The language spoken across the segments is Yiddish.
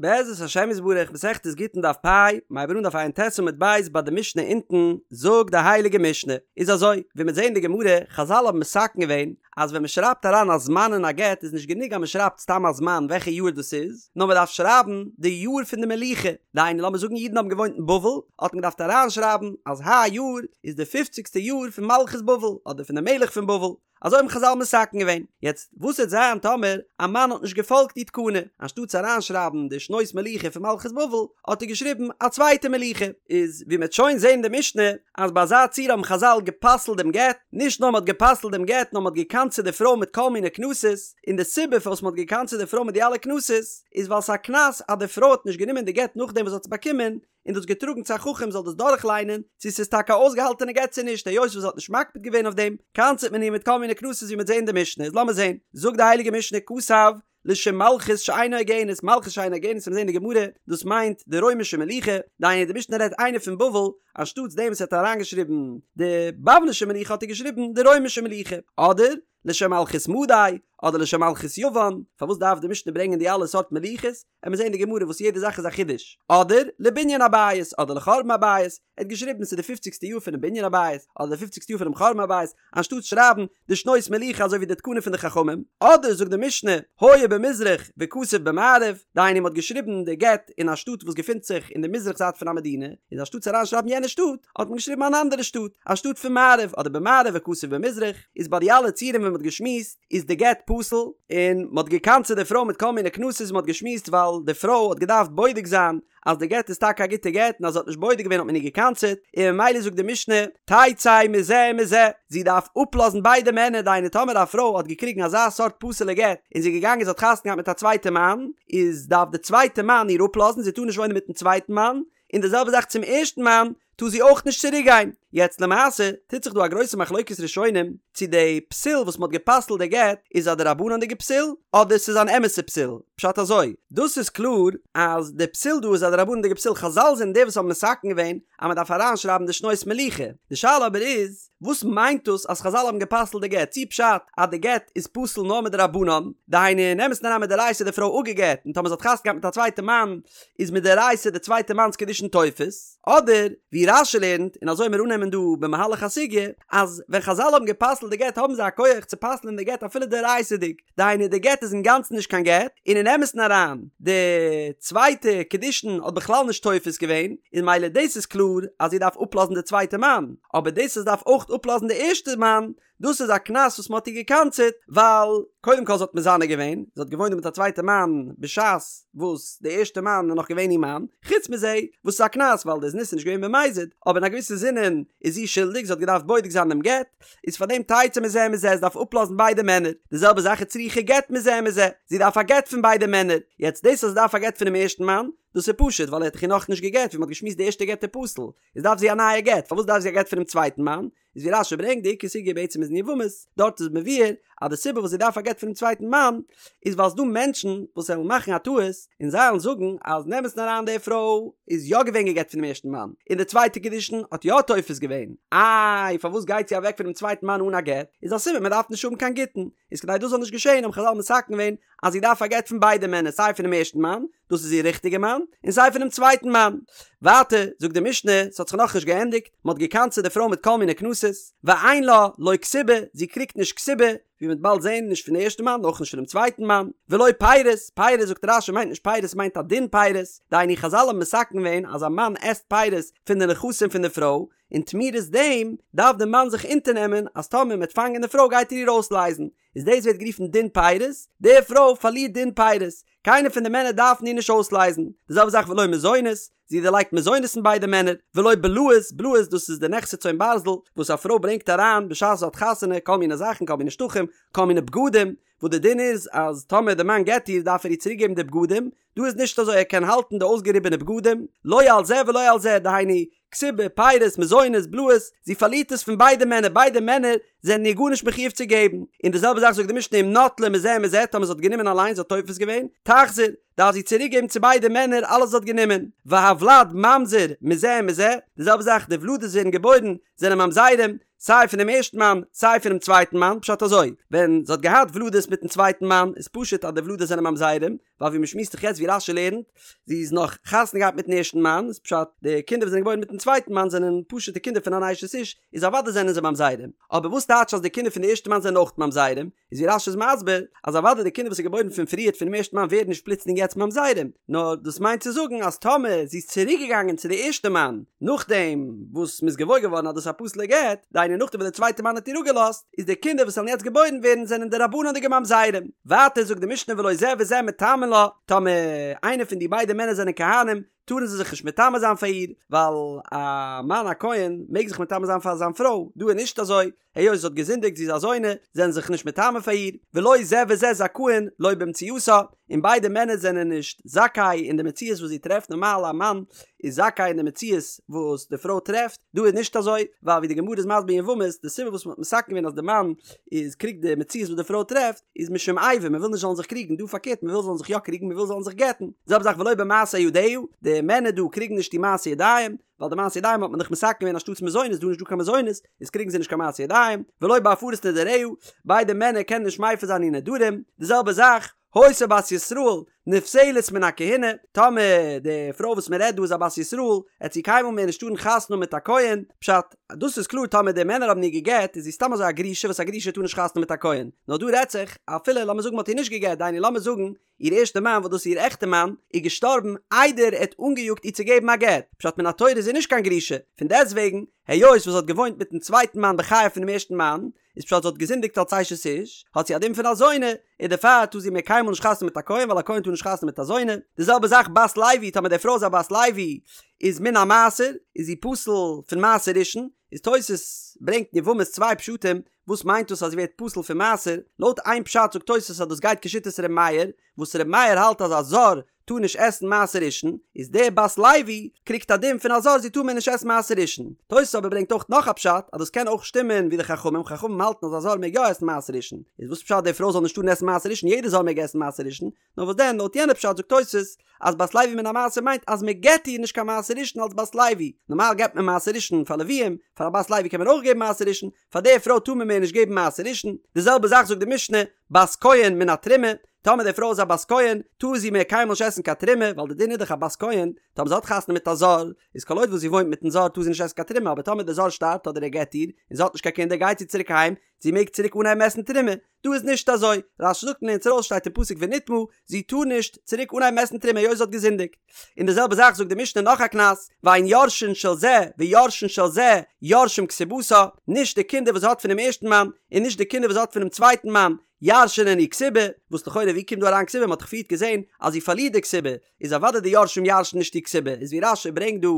בעזרת השם יתברך מסכת גיטין דף פ', מ'הייבט אן דף ע"ט עמוד ב' ביי די משנה אונטן, זאגט די הייליגע משנה, איז אזוי, ווי מ'וועט זעהן אין די גמרא, חזל האבן מתקן געווען, אז ווען מ'שרייבט אריין א זמן אין א גט איז נישט גענוג אז מ'שרייבט סתם א זמן וועלכע יאר דאס איז, נאר מ'דארף שרייבן די יאר פון די מלוכה, דהיינו לאמיר זאגן אידן האבן געוואוינט אין בבל, האט מען געדארפט אריינשרייבן אז היי יאר איז די פופציגסטע יאר פון מלכות בבל, אדער פון די מלך פון בבל. אזוי האבן חזל מתקן געווען. יעצט, וואס וועט זיין טאמער א מאן האט נישט געפאלגט די תקנה? אנשטאט אריינשרייבן די שנות מלוכה פון מלכות בבל, האט ער געשריבן א צווייטע מלוכה. איז ווי מ'וועט שוין זען אין די משנה, אז ביי אזא ציור האבן חזל גע'פסל'ט דעם גט, נישט נאר מ'האט גע'פסל'ט דעם גט, נאר מ'האט גע'קנס'עט די פרוי מיט כל מיני קנסות, און די סיבה פארוואס מ'האט גע'קנס'עט די פרוי מיט די אלע קנסות, איז ווייל ס'איז א קנס אז די פרוי האט נישט גענומען די גט נאכדעם וואס זי האט עס באקומען, און דאס געטראגן צו א חכם זאל דאס דורכליינען צו ס'איז טאקע א אויסגעהאלטענע גט צו נישט, היות וואס זי האט נישט מקפיד געווען אויף דעם, קנס'עט מען איר מיט כל מיני קנסות ווי מ'וועט זען אין די משנה, איז לאמיר זען, זאגט די הייליגע משנה כתב לשם מלכות שאינה הוגנת, מלכות שאינה הוגנת וועט מען זען אין די גמרא, דאס מיינט די רוימישע מלוכה, דהיינו די משנה רעדט איינער פון בבל, אנשטאטס דעם וואס ער האט אריינגעשריבן די בבלישע מלוכה האט ער געשריבן די רוימישע מלוכה, אדער לשם מלכות מדי, אדער לשם מלכות יוון, פארוואס דארף די משנה ברענגען די אלע סארט מלוכות? עמיר זעהן אין די גמרא וואס יעדע זאך איז א חידוש, אדער לבנין הבית אדער לחורבן הבית, ער האט געשריבן ס'איז די פופציגסטע יאר פונעם בנין הבית אדער די פופציגסטע יאר פונעם חורבן הבית, אנשטאט שרייבן די שנות מלוכה אזוי ווי די תקנה פון די חכמים, אדער זאגט די משנה היה במזרח וכתב במערב, דהיינו מ'האט געשריבן די גט אין א שטאט וואס געפינט זיך אין די מזרח זייט פון א מדינה, איז אנשטאט צו אריין שרייבן יענע שטאט האט מען געשריבן אן אנדערע שטאט, א שטאט פון מערב אדער במערב וכתב במזרח, איז ביי די אלע ציורים ווי מ'האט געשמועסט, איז די גט פסול, און מ'האט געקנס'עט די פרוי מיט כל מיני קנסות ווי מ'האט געשמועסט ווייל די פרוי האט געדארפט בודק זיין אז די גט איז טאקע א גוטע גט און אז זי האט נישט בודק געווען האט מען איר געקנס'עט, און ממילא זאגט די משנה תצא מזה ומזה, זי דארף אפלאזן ביידע מענער דהיינו טאמער א פרוי האט געקריגן אזא סארט פסול'ע גט און זי איז געגאנגען זי האט חתונה געהאט מיט א צווייטע מאן איז דארף די צווייטע מאן איר אפלאזן זי טאר נישט וואוינען מיטן צווייטן מאן, און די זעלבע זאך צום ערשטן מאן טאר זי אויך נישט צוריק גיין. יעצט למעשה טוט זיך דא א גרויסע מחלוקת ראשונים צו די פסול וואס מ'האט גע'פסל'ט די גט איז א דרבנן'דיגע פסול אדער ס'איז אן אמת'ע פסול. פשט אזוי, דאס איז קלאר אז די פסול דא איז א דרבנן'דיגע פסול, חזל זענען די וואס האבן מתקן געווען אז מ'דארף אריינשרייבן די שנות מלוכה. די שאלה אבער איז, וואס מיינט דאס אז חזל האבן גע'פסל'ט די גט? צי פשט אז די גט איז פסול נאר מדרבנן, דהיינו אין אמת'ן אריין מדאורייתא איז די פרוי אפגע'גט און טאמער זי האט חתונה געהאט מיט א צווייטע מאן איז מדאורייתא די צווייטע מאנ'ס קידושין תופס, אדער ווי רש"י לערנט, און אזוי מיר אננעמען דא במהלך הסוגיא, אז ווען חזל האבן גע'פסל'ט די גט האבן זיי א כח צו פסל'ען די גט אפילו דאורייתא'דיג, דהיינו די גט איז אינגאנצן נישט קיין גט, און אין אמת'ן אריין די צווייטע קידושין האט בכלל נישט תופס געווען, און ממילא דאס איז קלאר אז זי דארף אפלאזן די צווייטע מאן, אבער דאס אז זי דארף אויך אפלאזן די ערשטע מאן, דאס איז א קנס וואס מען האט איר געקנס'עט, ווייל קודם כל זי האט מזנה געווען, זי האט געוואוינט מיט א צווייטע מאן בשעת וואס די ערשטע מאן איז נאך געווען איר מאן, חוץ מזה וואס ס'איז א קנס ווייל די זנות איז נישט געווען במזיד, אבער אין א געוויסע זינען איז זי שולדיג, זי האט געדארפט בודק זיין דעם גט, איז פאר דעם תצא מזה ומזה, זי דארף אפלאזן ביידע מענער, די זעלבע זאך איז צריכה גט מזה ומזה, זי דארף א גט פון ביידע מענער, יעצט דאס אז זי דארף א גט פונעם ערשטן מאן, דאס איז פשוט ווייל ער האט דאך איר נאכנישט גע'גט, ווי מען האט געשמועסט די ערשטע גט איז פסול, איז דארף זי א נייע גט, פארוואס דארף זי א גט פונעם צווייטן מאן? איז ווי רש"י ברענגט די עיקר סוגיא בעצם איז אין יבמות, דארט איז מבואר אז די סיבה וואס זי דארף א גט פונעם צווייטן מאן איז ווייל ס'דא מענטשן וואס וועלן מאכן א טעות און זיי וועלן זאגן אז אין אמת'ן אריין די פרוי איז יא געווען גע'גט פונעם ערשטן מאן און די צווייטע קידושין האט יא תופס געווען, איי פארוואס גייט זי אוועק פונעם צווייטן מאן אן א גט? איז א סימן מען דארף נישט האבן קיין גיטין, איז כדי דאס זאל נישט געשען האבן חזל מתקן געווען אז זי דארף א גט פון ביידע מענער סיי פונעם ערשטן מאן דאס איז איר ריכטיגע מאן, און סיי פונעם צווייטן מאן. ווייטער זאגט די משנה, ס'האט זיך נאכנישט געענדיגט, מ'האט געקנס'עט די פרוי מיט כל מיני קנסות, ואין לה לא כתובה, זי קריגט נישט כתובה, ווי מ'וועט באלד זען, נישט פון די ערשטע מאן, אויך נישט פונעם צווייטן מאן, ולא פירות, פירות זאגט רש"י מיינט נישט פירות מיינט א דין פירות, דהיינו חזל האבן מתקן געווען אז א מאן עסט פירות פון די נכסים פון די פרוי, און תמורת דעם דארף די מאן זיך אונטערנעמען אז טאמער מ'וועט פאנגען די פרוי גייט ער איר אויסלייזן, איז דאס ווערט גערופן דין פירות, די פרוי פארלירט דין פירות, קיינער פון די מענער דארפן איר נישט אויסלייזן, די זעלבע זאך ולא מזונות, זי דערלייגט מזונות פון ביידע מענער, ולא בלאות, בלאות דאס איז די נכסי צאן ברזל וואס א פרוי ברענגט אריין בשעת זי האט חתונה, כל מיני זאכן, כל מיני שטחים, כל מיני בגדים, וואס די דין איז אז טאמער די מאן גט איר דארף ער איר צוריק געבן די בגדים, דא איז נישט אזוי ער קען האלטן די אויסגעריבענע בגדים, לא על זה ולא על זה, דהיינו, כתובה, פירות, מזונות, בלאות, זי פארלירט עס פון ביידע מענער, ביידע מענער זענען איר גארנישט מחיוב צו געבן. און די זעלבע זאך זאגט די משנה אם נטלה מזה ומזה, טאמער זי האט גענומען אליין, זי האט תופס געווען, תחזיר, דארף זי צוריק געבן צו ביידע מענער אלעס וואס זי האט גענומען. והוולד ממזר מזה ומזה, די זעלבע זאך די ולדות ווערן געבוירן, זענען ממזרים, סיי פונעם ערשטן מאן, סיי פונעם צווייטן מאן, פשט אזוי, ווען זי האט געהאט ולדות מיטן צווייטן מאן, איז פשוט אז די ולדות זענען ממזרים, ווייל ווי מ'שמועסט דאך יעצט ווי רש"י לערנט, זי איז נאך חתונה געהאט מיטן ערשטן מאן, איז פשט די קינדער וואס זענען געבוירן מיטן צווייטן מאן זענען פשוט'ע קינדער פון אן אשת איש, איז אוודאי זענען זיי ממזרים, אבער וואס טייטש אז די קינדער פון די ערשטע מאן זענען אויך ממזרים, איז ווי רש"י איז מסביר, אז אוודאי די קינדער וואס איז געבוירן פון פריערט פונעם ערשטן מאן ווערן נישט פלוצלינג יעצט ממזרים, נאר דאס מיינט צו זאגן אז טאמער זי איז צוריק געגאנגען צו די ערשטע מאן נאכדעם וואס מ'איז געוואויר געווארן אז דאס איז א פסול'ע גט, דהיינו נאכדעם וואס די צווייטע מאן האט איר אפגעלאזט, איז די קינדער וואס וועלן יעצט געבוירן ווערן זענען דרבנן'דיגע ממזרים. ווייטער זאגט די משנה ולא זה וזה מטמאין לה, טאמער איינער פון די ביידע מענער זענען כהנים, טארן זיי זיך נישט מטמא זיין פאר איר, ווייל א מאן א כהן מעג זיך מטמא זיין פאר זיין פרוי, דא איז נישט אזוי, היות זי האט געזינדיגט זי איז א זונה, זענען זיך נישט מטמא פאר איר, ולא זה וזה זכאין לא במציאתה, און ביידע מענער זענען נישט זכאי אין די מציאות וואס זי טרעפט, נארמאל א מאן איז זכאי אין די מציאות וואס די פרוי טרעפט, דא איז נישט אזוי, ווייל ווי די גמרא איז מסביר אין יבמות, די סיבה וואס מען האט מתקן געווען אז די מאן איז קריגט די מציאות וואס די פרוי טרעפט, איז משום איבה, מען וויל נישט זאלן זיך קריגן, דא פארקערט מען וויל זאלן זיך יא קריגן, מען וויל זאלן זיך גט'ן, זעלבע זאך ולא במעשה ידיה, די מענער דא קריגן נישט די מעשה ידיים, ווייל די מעשה ידיים האט מען דאך מתקן געווען אנשטאטס מזונות, דא איז נישט דא קיין מזונות, איז קריגן זיי נישט קיין מעשה ידיים, ולא בהפרת נדריה, ביידע מענער קענען נישט מפר זיין איר נדרים, די זעלבע זאך, היתה בת ישראל, נפסלת מן הכהונה, טאמער די פרוי וואס מען רעדט דא איז א בת ישראל, עט זי קיינמאל מער נישט טארן חתונה האבן מיט א כהן, פשט, דאס איז קלאר טאמער די מענער האבן איר גע'גט איז זי סתם אזוי א גרושה וואס א גרושה טאר נישט חתונה מיט א כהן, נאר דא רעדט זיך אפילו לאמיר זאגן מען האט איר נישט גע'גט דהיינו לאמיר זאגן איר ערשטע מאן וואס דאס איז איר עכטע מאן איז געשטארבן איידער ער האט אנגעיאגט איר צו געבן א גט, פשט מן התורה איז זי נישט קיין גרושה, פון דעסטוועגן היות וואס זי האט געוואוינט מיטן צווייטן מאן בחייו פונעם ערשטן מאן, איז פשט זי האט געזינדיגט אלס אשת איש, האט זי א דין פון א זונה, און דערפאר טאר זי מער קיינמאל נישט חתונה מיט א כהן ווייל א כהן טאר נישט חתונה מיט א זונה, די זעלבע זאך בת לוי טאמער די פרוי איז א בת לוי איז מן המעשר איז זי פסול פון מעשר ראשון, איז תוס' ברענגט אין יבמות צוויי פשטים וואס מיינט דאס אז זי ווערט פסול פון מעשר, לויט איין פשט זאגט תוס' אז דאס גייט כשיטת ר' מאיר, וואס ר' מאיר האלט אז א זר טאר נישט עסן מעשר ראשון, איז די בת לוי קריגט א דין פון א זר זי טאר מער נישט עסן מעשר ראשון. תוס' אבער ברענגט אויך נאך א פשט אז דאס קען אויך שטימען ווי די חכמים, חכמים האלטן אז א זר מעג יא עסן מעשר ראשון, איז וואס פשט די פרוי זאל נישט טארן עסן מעשר ראשון יעדער זר מעג עסן מעשר ראשון, נאר וואס דען לויט יענע פשט זאגט תוס' אז בת לוי מן המעשר מיינט אז מען געבט איר נישט קיין מעשר ראשון אלס בת לוי, נארמאל געבט מען מעשר ראשון פאר לוויים, פאר א בת לוי קען מען אויך געבן מעשר ראשון, פאר די פרוי טאר מען מער נישט געבן מעשר ראשון, די זעלבע זאך זאגט די משנה, בת כהן מן התרומה, טאמער די פרוי איז א בת כהן, טאר זי מער קיינמאל נישט עסן קיין תרומה, ווייל די דין איז דאך א בת כהן, טאמער זי האט חתונה מיט א זר, איז כל עוד וואס זי וואוינט מיטן זר טאר זי נישט עסן קיין תרומה, אבער טאמער די זר שטארבט אדער ער גט איר, און זי האט נישט קיין קינדער גייט זי צוריק אהיים, זי מעג צוריק אנהייבן עסן תרומה, דא איז נישט אזוי, רש"י זאגט און לערנט ארויס שטייט אין פסוק ונטמאה, זי טאר נישט צוריק אנהייבן עסן תרומה היות זי האט געזינדיגט. און די זעלבע זאך זאגט די משנה נאך א קנס, ואין יורשין של זה ויורשין של זה יורשים כתובתה, נישט די קינדער וואס זי האט פונעם ערשטן מאן, און נישט די קינדער וואס זי האט פונעם צווייטן מאן, ירש'ענען איר כתובה, וואס לכאורה ווי קומט דא אריין כתובה, מען האט דאך פריערט געזען אז זי פארלירט די כתובה, איז אוודאי די יורשים ירש'ן נישט איר כתובה, איז ווי רש"י ברענגט דא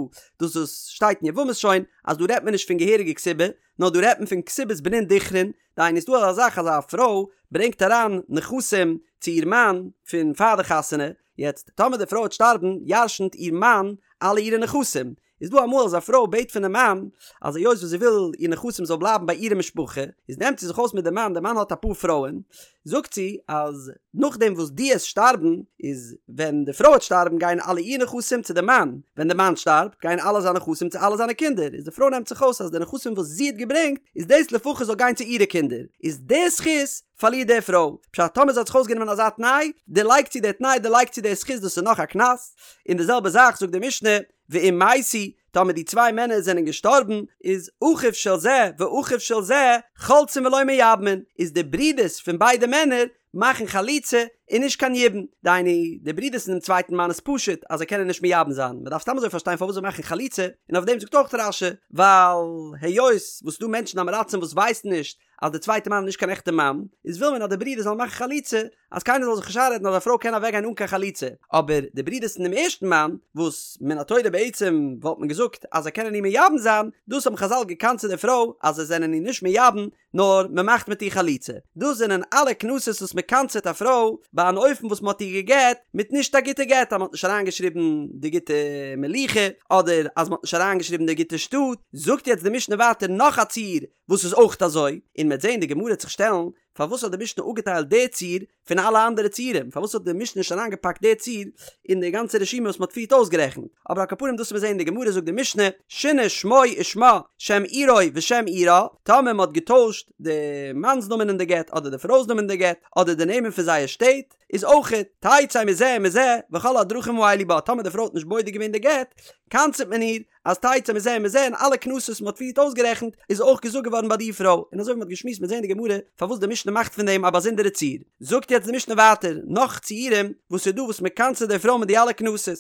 דאס וואס שטייט אין יבמות שוין, אז דא רעדט מען נישט פון געהעריגע כתובה, נאר דא רעדט מען פון כתובת בנין דכרין, דהיינו ס'דא אזא זאך אז א פרוי ברענגט אריין נכסים צו איר מאן פון פאר די חתונה, יעצט טאמער די פרוי וועט שטארבן ירשנ'ט איר מאן אלע אירע נכסים, איז דא אמאל אז א פרוי בעט פונעם מאן אז היות וואס זי וויל איר נכסים זאל בלייבן ביי אירע משפחה, איז נעמט זי זיך אויס מיט די מאן, די מאן האט אפאר פרויען, זאגט זי אז נאכדעם וואס דו עסט שטארבן, איז ווען די פרוי וועט שטארבן גייען אלע איר נכסים צו די מאן, ווען די מאן שטארבט גייען אלע זיינע נכסים צו אלע זיינע קינדער, איז די פרוי נעמט זיך אויס אז די נכסים וואס זי האט געברענגט איז דאס לפחות זאל גיין צו אירע קינדער, איז די זכות פארלירט די פרוי, פשט טאמער זי האט זיך אויסגענומען אזא תנאי, דערלייגט זי די תנאי דערלייגט זי די זכות דאס איז נאך א קנס, און די זעלבע זאך זאגט די משנה, ואם מתו, טאמער די צוויי מענער זענען געשטארבן, איז אחיו של זה ואחיו של זה חולצין ולא מייבמין, איז די ברידערס פון ביידע מענער מאכן חליצה און נישט קיין יבום, דהיינו די ברידערס פונעם צווייטן מאן איז פשוט אז זיי קענען נישט מייבם זיין, מען דארף סתם אזוי פארשטיין פארוואס זיי מאכן חליצה, און אויף דעם זאגט אויך רש"י, ווייל היות וואס ס'דא מענטשן עם הארצים וואס ווייסן נישט אז די צווייטע מאן איז נישט קיין עכטע מאן, איז וויל מען אז די ברידער זאלן מאכן חליצה, אז קיינער זאל זיך נישט איינרעדן אז א פרוי קען אוועקגיין אן קיין חליצה, אבער די ברידערס פון דעם ערשטן מאן, וואס מן התורה בעצם וואלט מען געזאגט אז זיי קענען איר מייבם זיין, דאס האבן חז"ל געקנס'עט די פרוי אז זיי זענען איר נישט מייבם, נאר מען מאכט מיט איר חליצה. דאס זענען אלע קנסות וואס מען קנס'עט א פרוי ביי אן אופן וואס מען האט איר גע'גט מיט נישט א גוטע גט, אז מען האט נישט אריינגעשריבן די גוטע מלוכה, אדער אז מען האט נישט אריינגעשריבן די גוטע שטאט. זאגט יעצט די משנה ווייטער נאך א ציור וואס איז אויך אזוי, און מ'עט זען די גמרא וועט זיך שטעלן, פארוואס האט די משנה אפגעטיילט די ציור פון אלע אנדערע ציורים, פארוואס האט די משנה נישט אריינגעפאקט די ציור אין די גאנצע רשימה וואס מ'האט פריערט אויסגערעכנט, אבער על כל פנים דאס וועט מען זען אין די גמרא זאגט די משנה, שינה שמו ושמה, שם עירו ושם עירה, טאמער מ'האט געטוישט די מאנ'ס נאמען אין די גט אדער די פרוי'ס נאמען אין די גט, אדער די נעמען פון זייער שטעט. איז אויכעט תצא מזה ומזה וכל הדרכים האלו בה, טאמער די פרוי האט נישט בודק געווען די גט, קנס'ט מען איר אז תצא מזה ומזה און אלע קנסות וואס מ'האט פריערט אויסגערעכנט איז אויך געזאגט געווארן ביי די פרוי, און אזוי ווי מ'האט געשמועסט מ'עט זען אין די גמרא פארוואס די משנה מאכט פון דעם א באזונדערע ציור. זאגט יעצט די משנה ווייטער נאך ציורים וואס איז דא וואס מ'קנס'ט די פרוי מיט די אלע קנסות.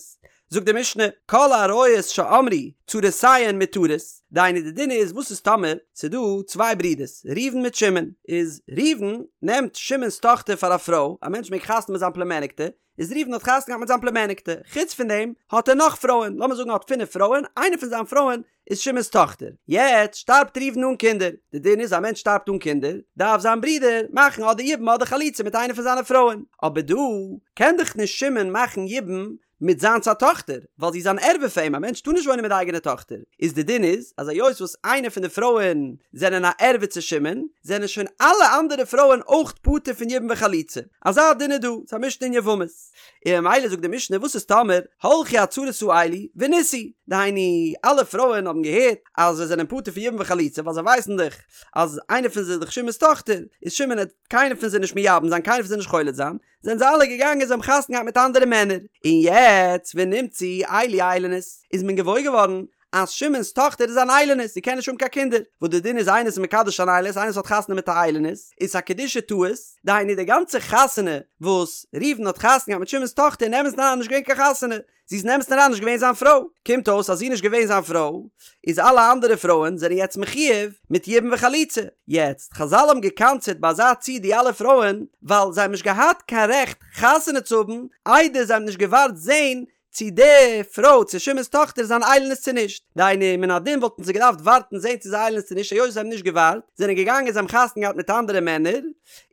זאגט די משנה, כל עריות שאמרו צרותיהן מותרות, דהיינו די דין איז וואס איז טאמער ס'איז דא צוויי ברידערס ראובן מיט שמעון, איז ראובן נעמט שמעון'ס טאכטער פאר א פרוי, א מענטש מעג חתונה מיט זיין פלומעניקטע, איז ראובן האט חתונה געהאט מיט זיין פלומעניקטע, חוץ פון דעם האט ער נאך פרויען, לאמיר זאגן ער האט פינף פרויען, איינע פון זיין פרויען איז שמעון'ס טאכטער, יעצט שטארבט ראובן אן קינדער, די דין איז א מענטש שטארבט אן קינדער, דארף זיין ברודער מאכן אדער יבום אדער חליצה מיט איינע פון זיינע פרויען, אבער דא קען דאך נישט שמעון מאכן יבום מיט זיינס א טאכטער, ווייל זי איז אן ערווה פאר אים, א מענטש טאר נישט וואוינען מיט די אייגענע טאכטער, איז די דין איז אז היות וואס איינע פון די פרויען זענען א ערווה צו שמעון, זענען שוין אלע אנדערע פרויען אויך פטור פון יבום וחליצה, אזא דין איז דא, ס'איז א משנה אין יבמות. און ממילא זאגט די משנה וואס איז טאמער הלכו הצרות האלו ונישאו, דהיינו אלע פרויען האבן געהערט אז זיי זענען פטור פון יבום וחליצה ווייל זיי ווייסן דאך אז איינע פון זיי איז דאך שמעון'ס טאכטער, איז שמעון העט קיינער פון זיי נישט מייבם זיין קיינער פון זיי נישט חולץ זיין, זענען זיי אלע געגאנגען זיי האבן חתונה געהאט מיט אנדערע מענער, און יעצט ונמצאו אלו איילוניות, איז מען געוואויר געווארן אז שמעון'ס טאכטער איז אן איילונית, זי קען נישט האבן קיין קינדער, וואס די דין איז איינער איז מקדש אן איילונית, איינער וואס האט חתונה מיט א איילונית, איז א קידושי טעות, דהיינו די גאנצע חתונה וואס ראובן האט חתונה געהאט מיט שמעון'ס טאכטער אין אמת'ן אריין נישט געווען קיין חתונה, זי איז אין אמת'ן אריין נישט געווען זיין פרוי, קומט אויס אז זי איז נישט געווען זיין פרוי, איז אלע אנדערע פרויען זענען יעצט מחויב מיט יבום וחליצה, יעצט, חזל האבן געקנס'עט ביי אזא ציור די אלע פרויען, ווייל זיי האבן נישט געהאט קיין רעכט חתונה צו האבן איידער זיי האבן נישט געווארט זען צי די פרוי צו שמעון'ס טאכטער איז אן איילונית צו נישט, דהיינו מן הדין וואלטן זיי געדארפט ווארטן זען צו זי איז איילונית צו נישט, היות זיי האבן נישט געווארט, זענען געגאנגען זיי האבן חתונה געהאט מיט אנדערע מענער,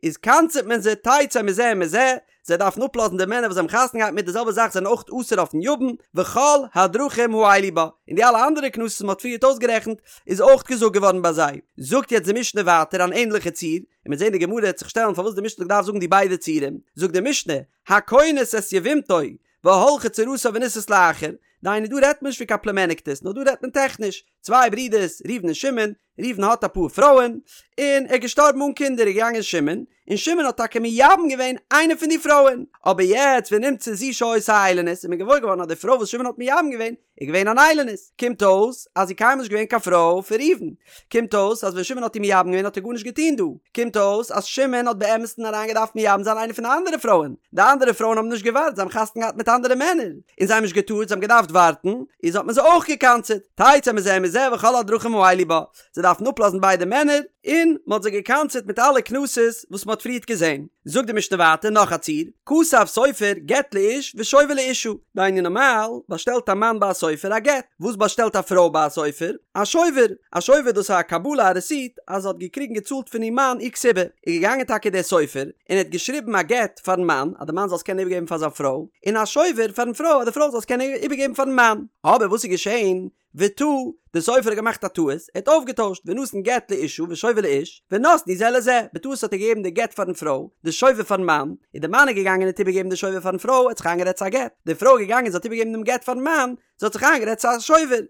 איז קנס'עט מען זיי תצא מזה ומזה, זיי דארפן אפלאזן די מענער וואס זיי האבן חתונה געהאט מיט די זעלבע זאך זענען אויך אסור אויפן יבם, וכל הדרכים האלו בה, און די אלע אנדערע קנסות וואס מען האט פריערט אויסגערעכנט איז אויך געזאגט געווארן ביי זיי. זאגט יעצט די משנה ווייטער אן ענדליכע ציור, און מ'עט זען די גמרא העט זיך שטעלן פארוואס די משנה האט געדארפט זאגן די ביידע ציורים, זאגט די משנה, הכונס את יבמתו והלכה צרתה ונישאת לאחר, דהיינו דא רעדט מען נישט פון קיין פלומעניקטעס נאר דא רעדט מען טעכניש, צוויי ברידערס ראובן און שמעון, ראובן האט אפאר פרויען, און ער איז געשטארבן אן קינדער איז געגאנגען שמעון, און שמעון האט טאקע מייבם געווען איינע פון די פרויען, אבער יעצט ונמצא זו שהיתה איילונית איז מען געוואויר געווארן אז די פרוי וואס שמעון האט מייבם געווען איז געווען אן איילונית, קומט אויס אז זי קיינמאל נישט געווען קיין פרוי פון ראובן, קומט אויס אז ווען שמעון האט איר מייבם געווען האט ער גארנישט געטון דא, קומט אויס אז שמעון האט באמת'ן אריין געדארפט מייבם זיין איינע פון די אנדערע פרויען, די אנדערע פרויען האבן נישט געווארט זיי האבן חתונה געהאט מיט אנדערע מענער, און זיי האבן נישט געטארט זיי האבן געדארפט ווארטן, איז האט מען זיי אויך געקנס'עט, תצא מזה ומזה וכל הדרכים האלו בה, זיי דארפן אפלאזן ביידע מענער, און מען האט זיי געקנס'עט מיט אלע קנסות וואס מען האט פריערט געזען. זאגט די משנה ווייטער נאך א ציור, כתב סופר גט לאיש ושובר לאשה, דהיינו נארמאל באשטעלט א מאן ביי א סופר א גט, וואס באשטעלט א פרוי ביי א סופר? א שובר, א שובר דאס איז א קבלה א רעסיט אז זי האט געקריגן געצאלט פון איר מאן איר כתובה, איז געגאנגען טאקע דער סופר און ער האט געשריבן א גט פארן מאן אז די מאן זאל עס קענען איבערגעבן פאר זיין פרוי, און א שובר פארן פרוי אז די פרוי זאל עס קענען איבערגעבן פארן מאן, אבער וואס איז געשען? וטעה, דער סופר האט געמאכט א טעות, ער האט אויפגעטוישט, ונתן גט לאשה ושובר לאיש, ונתנו זה לזה, בטעות האט ער געגעבן די גט פארן פרוי, די שובר פארן מאן, און די מאן איז געגאנגען און האט איבערגעגעבן די שובר פארן פרוי, ער האט זיך איינגערעדט ס'איז א גט, די פרוי איז געגאנגען זי האט איבערגעגעבן דעם גט פארן מאן, זי האט זיך איינגערעדט ס'איז א שובר.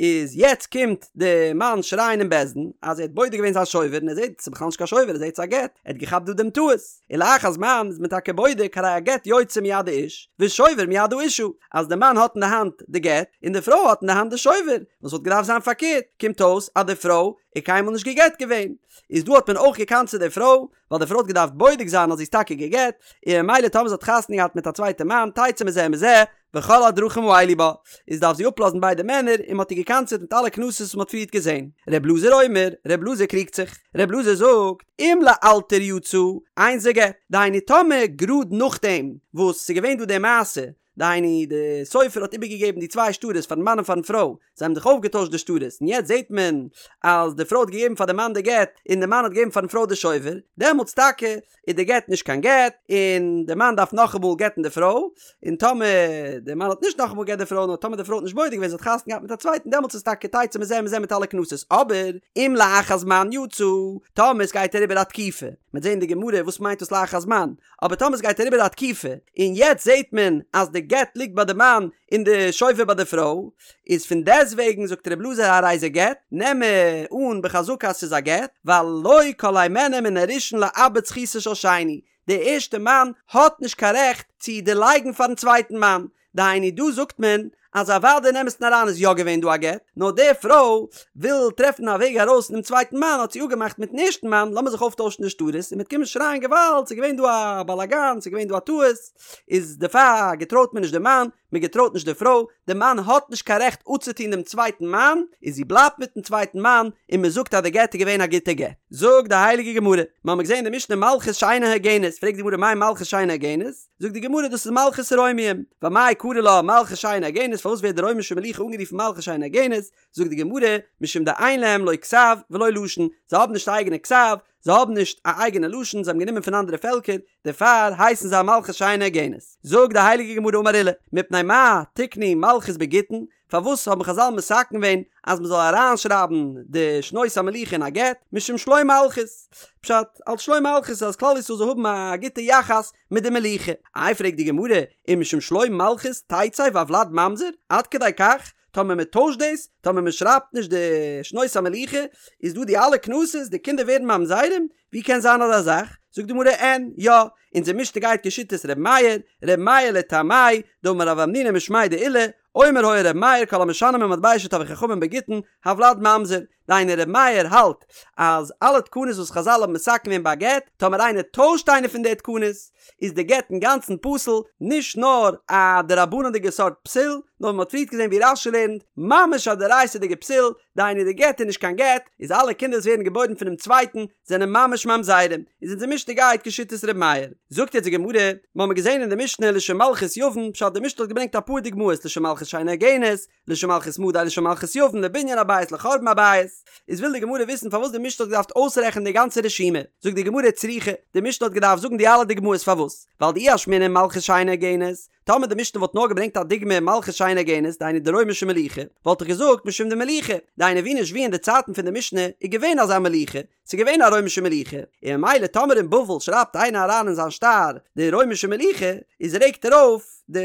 איז יעצט קומט די מאן שרייען אין בית דין אז ער האט בודק געווען זיין שובר און ער זעט ס'איז בכלל נישט קיין שובר ער זעט ס'איז א גט, ער האט געכאפט דא דעם טעות. און לאחר זמן איז מען טאקע בודק הרי הגט יוצא מיד האיש ושובר מיד האשה, אז די מאן האט אין די האנט די גט און די פרוי האט אין די האנט די שובר, וואס וואלט געדארפט זיין פארקערט, קומט אויס אז די פרוי איז קיינמאל נישט גע'גט געווען, איז דא האט מען אויך געקנס'עט די פרוי, ווייל די פרוי האט געדארפט בודק זיין אז זי איז טאקע גע'גט, און ממילא טאמער זי האט חתונה געהאט מיט א צווייטע מאן תצא מזה ומזה, וכל הדרכים האלו בה, איז דארף זי אפלאזן ביידע מענער, און מ'האט איר געקנס'עט מיט אלע קנסות וואס מ'האט פריערט געזען. ר' אלעזר אומר, ר' אלעזר קריגט זיך. ר' אלעזר זאגט, אם לאלתר יצא, אין זה גט. דהיינו טאמער גראד נאכדעם וואס ס'איז געווען דא די מעשה, דהיינו די סופר האט איבערגעגעבן די צוויי שטרות פארן מאן און פארן פרוי, זיי האבן זיך אויפגעטוישט די שטרות, און יעצט זעט מען אז די פרוי האט געגעבן פאר די מאן די גט, און די מאן האט געגעבן פארן פרוי די שובר, דעמאלטס טאקע איז די גט נישט קיין גט, און די מאן דארף נאכאמאל גט'ן די פרוי, און טאמער די מאן האט נישט נאכאמאל גע'גט די פרוי, נאר טאמער די פרוי האט נישט בודק געווען זי האט חתונה געהאט מיט א צווייטן דעמאלטס איז טאקע תצא מזה ומזה מיט אלע קנסות, אבער אם לאחר זמן יצא, טאמער עס גייט אריבער א תקופה, מ'וועט זען אין די גמרא וואס מיינט דאס לאחר זמן, אבער טאמער עס גייט אריבער א תקופה, און יעצט זעט מען אז די גט ליגט ביי די מאן און די שובר ביי די פרוי, איז פון דעסטוועגן זאגט ר' אלעזר הרי זה גט, נעם מיר אן בחזקה אז ס'איז א גט, ווייל לא כל הימנו מן הראשון לאבד זכותו של שני. די ערשטע מאן האט נישט קיין רעכט צו דערלייגן פארן צווייטן מאן, דהיינו דא זאגט מען אז אוודאי אין אמת'ן אריין איז יא געווען דא א גט, נאר די פרוי וויל טרעפן א וועג ארויס פונעם צווייטן מאן האט זי אפגעמאכט מיטן ערשטן מאן לאמיר זיך אויפטוישן די שטרות און מ'וועט קומען שרייען געוואלד ס'איז געווען דא א באלאגאן ס'איז געווען דא א טעות, איז דערפאר געטרויט מען נישט די מאן, מען געטרויט נישט די פרוי, די מאן האט נישט קיין רעכט אפצוטון דעם צווייטן מאן, און זי בלייבט מיטן צווייטן מאן, און מען זאגט אז די גט איז געווען א גוטע גט. זאגט די הייליגע גמרא, מיר האבן געזען אין די משנה מלכות שאינה הוגנת, פרעגט די גמרא מאי מלכות שאינה הוגנת? זאגט די גמרא דאס איז מלכות רומיים, ואמאי קרי לה מלכות שאינה הוגנת, פארוואס ווערט די רוימישע מלוכה אנגערופן מלכות שאינה הוגנת? זאגט די גמרא, משום דאין להם לא כתב ולא לשון, זיי האבן נישט א אייגענע כתב, זיי האבן נישט א אייגענע לשון, זיי האבן גענומען פון אנדערע פעלקער, דערפאר הייסן זיי מלכות שאינה הוגנת. זאגט די הייליגע גמרא אמר עולא, מפני מה תקנו מלכות בגיטין, פארוואס האבן חזל מתקן געווען אז מען זאל אריינשרייבן די שנות המלוכה אין א גט, משום שלום מלכות, פשט, אלס שלום מלכות אז כלל ישראל זאל האבן א גוטע יחס מיט די מלוכה. איי פרעגט די גמרא, ומשום שלום מלכות תצא והולד ממזר, עד כדי כך, טאמער מען טוישט דאס, טאמער מען שרייבט נישט די שנות המלוכה, איז דא די אלע קנסות, די קינדער ווערן ממזרים, ווי קען זיין אזא זאך? זאגט די גמרא אין, יא, אונזער משנה גייט כשיטת ר' מאיר, ר' מאיר לטעמי', דאמר רב המנונא משמיה דעולא, אומר היה ר' מאיר כל המשנה ממטבע שטבעו חכמים בגיטין, הולד ממזר, דהיינו ר' מאיר האלט אז אלע תקנות וואס חזל האבן מתקן געווען ביי א גט, טאמער איינער טוישט איינע פון די תקנות, איז די גט אינגאנצן פסול, נישט נאר א דרבנן'דיגע סארט פסול, נאר ווי מ'האט פריערט געזען ווי רש"י לערנט, ממש א דאורייתא'דיגע פסול, דהיינו די גט איז נישט קיין גט, איז אלע קינדער וואס ווערן געבוירן פונעם צווייטן זענען ממש ממזרים, איז אונזער משנה גייט כשיטת ר' מאיר. זאגט יעצט די גמרא, מ'האמיר געזען אין די משנה לשם מלכות יוון, פשט די משנה האט געברענגט אפאר דוגמאות לשם מלכות שאינה הוגנת, לשם מלכות מדי לשם מלכות יוון לבנין הבית לחורבן הבית, איז וויל די גמרא וויסן פארוואס די משנה האט געדארפט אויסרעכענען די גאנצע רשימה, זאגט די גמרא צריכא, די משנה האט געדארפט זאגן די אלע דוגמאות פארוואס, ווייל דאי אשמעינן מלכות שאינה הוגנת, טאמער די משנה וואלט נאר געברענגט א דוגמא מלכות שאינה הוגנת, דהיינו די רוימישע מלוכה, וואלט איך געזאגט משום דמליכא, דהיינו ווי נישט ווי אין די צייטן פון די משנה איז געווען אזא מלוכה, ס'איז געווען א רוימישע מלוכה, און ממילא טאמער אין בבל שרייבט איינער אריין אין זיין שטר די רוימישע מלוכה, איז רעגט ער אויף די